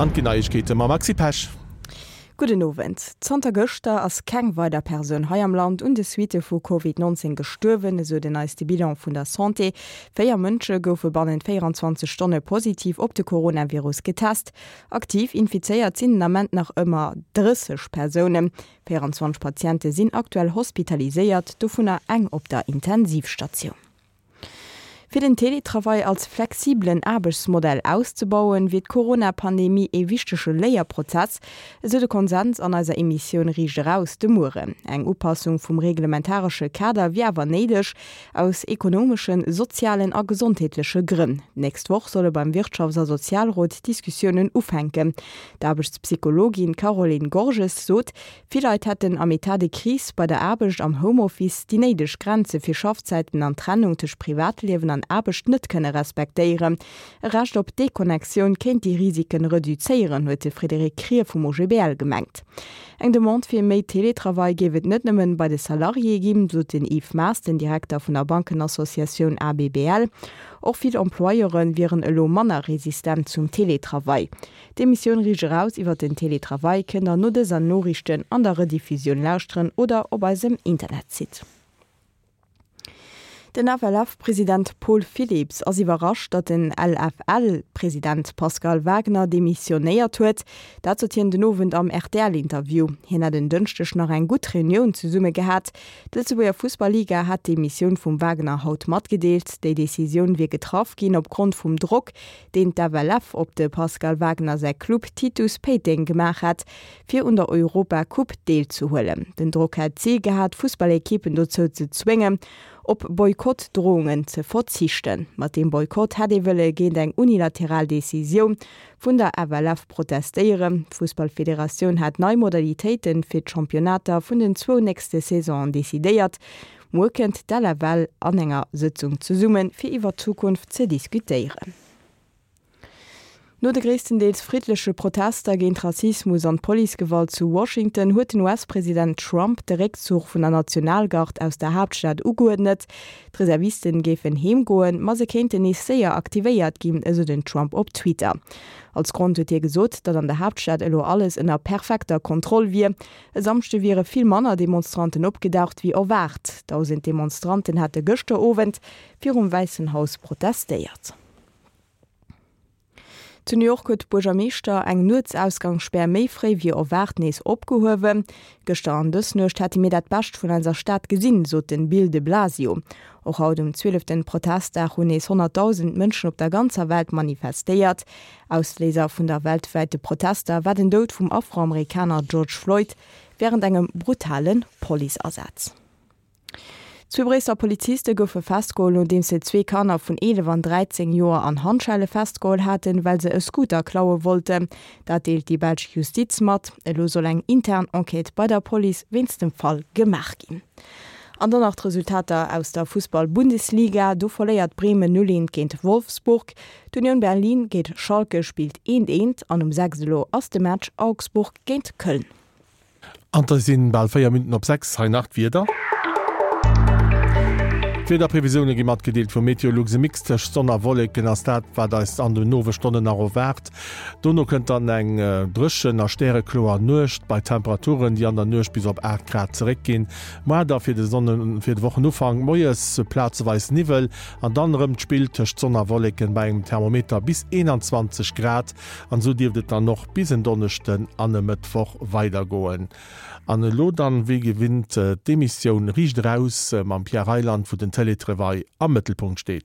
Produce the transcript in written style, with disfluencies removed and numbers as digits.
An et ginn Neiegkeete mam Maxi Pesch. Gudden Owend. Zanter gëschter ass keng weider Persoun hei am Land un de Suitte vu Covid 19 gestuerwen, esou den neiste Bilan vun der Santé. 4 Mënsche goufe bannent 24 Stonne positiv op de Coronavirus getest. Aktiv infizéiert sinn den Ament nach ëmmer 30 Persounen. 24 Patiente sinn aktuell hospitaliséiert, dovunner eng op der Intensivstatioun. Fir den Teletravail als flexibelen Aarbechtsmodell auszebauen, wier d'Corona-Pandemie ee wichtege Léierprozess, esou de Konsens an eiser Emissioun Riicht Eraus de Mueren. Eng Upassung vum reglementaresche Kader wier awer néideg, aus ekonomeschen, sozialen a gesondheetleche Grënn. D'nächst Woch solle beim Wirtschafts a Sozialrot d'Diskussiounen ufänken. D'Aarbechtspsychologin Caroline Gorges sot, Vill Leit hätten am Etat de crise bei der Aarbecht am Homeoffice déi néideg Grenze fir Schaffzäiten an d'Trennung tëscht Privatliewen an Aarbecht net kënne respektéieren. E Recht op Deconnectioun kéint déi Risiken reduzéieren, huet de Frédéric Krier vum OGBL gemengt. Eng Demande fir méi Teletravail géif et net nëmmen bei de Salariéë ginn, sot den Yves Maas, den Direkter vun der Bankenassociatioun ABBL. Och vill Employeure wieren elo manner resistent zum Teletravail. D'Emissioun Riicht eraus iwwer den Teletravail kënnt der no dëser Noriichten an der Rediffusioun lauschteren oder op eisem Internetsite. Den FLF-President Paul Philips ass iwwerrascht, datt den LFL-President Pascal Wagner demissionéiert huet. Dat sot hien den Owend am RTL-Interview. Hien hätt en Dënschdeg nach eng gutt Reunioun zesumme gehat. D'Lëtzebuerger Fussball-Liga hat d'Demissioun vum Wagner haut matgedeelt. Déi Decisioun wier getraff ginn opgrond vum Drock, deen d'FLF op de Pascal Wagner säi Club Titus Péiteng gemaach hat, fir un der Europa Coupe deelzehuelen. Den Drock hätt d'Zil gehat, d'Fussballekippen dozou ze zwéngen, op Boykott-Drohungen ze verzichten. Mat deem Boykott hätt ee wëlle géint eng unilateral Decisioun vun der FLF protestéieren. D'Fussballfederatioun hat nei Modalitéite fir d'Championnater vun den zwou nächste Saisonen decidéiert. Muer kënnt d'LFL an enger Sëtzung zesummen, fir iwwer d'Zukunft ze diskutéieren. No de gréisstendeels friddleche Protester géint Rassismus an d'Policegewalt zu Washington huet den US-President Trump de Réckzuch vun der Nationalgard aus der Haaptstad ugeuerdnet. D'Reservisten géifen heem goen, ma se kéinten nees séier aktivéiert ginn, esou den Trump op Twitter. Als Grond huet hie gesot, datt an der Haaptstad elo alles ënner perfekter Kontroll wier. E Samschde wiere vill manner Demonstranten opgedaucht wéi erwaart. 1.000 Demonstranten hate gëschter Owend virum Wäissen Haus protestéiert. Zu New York huet d'Buergermeeschter eng Nuetsausgangsspär méi fréi wéi erwaart nees opgehuewen. Gëschter an dës Nuecht hätte mir dat Bescht vun eiser Stad gesinn, sot den Bill de Blasio. Och haut um zwieleften Protestdag hunn nees 100.000 Mënschen op der ganzer Welt manifestéiert. Ausléiser vun der weltwäite Protester war den Doud vum Afroamerikaner George Floyd wärend engem brutale Policeasaz. Zwee Bréisseler Poliziste goufe festgeholl, nodeems se zwee Kanner vun 11 an 13 Joer an Handschelle festgeholl haten, well se e Scooter klaue wollten. Dat deelt déi belsch Justiz mat. Elo soll eng intern Enquête bei der Police wéinst dem Fall gemaach ginn. An dann nach d'Resultater aus der Fussball-Bundesliga, Do verléiert Bremen 0, 1 géint Wolfsburg. D'Union Berlin géint Schalke spillt eent eent an um 6 elo ass de Match Augsburg géint Köln. An et sinn bal 4 Minutten op 6. Hei nach d'Wieder. D'Wiederprevisioune gi matgedeelt vu Meteolux. E Mix tëscht Sonn a Wolleken ass dat, wat eis an den Owesstonnen nach erwaart. Dono kënnt dann eng dréchen a stärekloer Nuecht bei Temperaturen, déi an der Nuecht bis op 8 Grad zeréckginn. Moar da fir de fir de Wochenufank moies plazeweis Niwwel An dann erëm d'Spill tëscht Sonn a Wolleken bei engem Thermometer bis 21 Grad. An esou dierft et dann och bis en Donneschden an e Mëttwoch weidergoen. An elo dann wéi gewinnt d'Emissioun Riicht eraus mam Pierre Reyland, wou den Télétravail am Mëttelpunkt steet.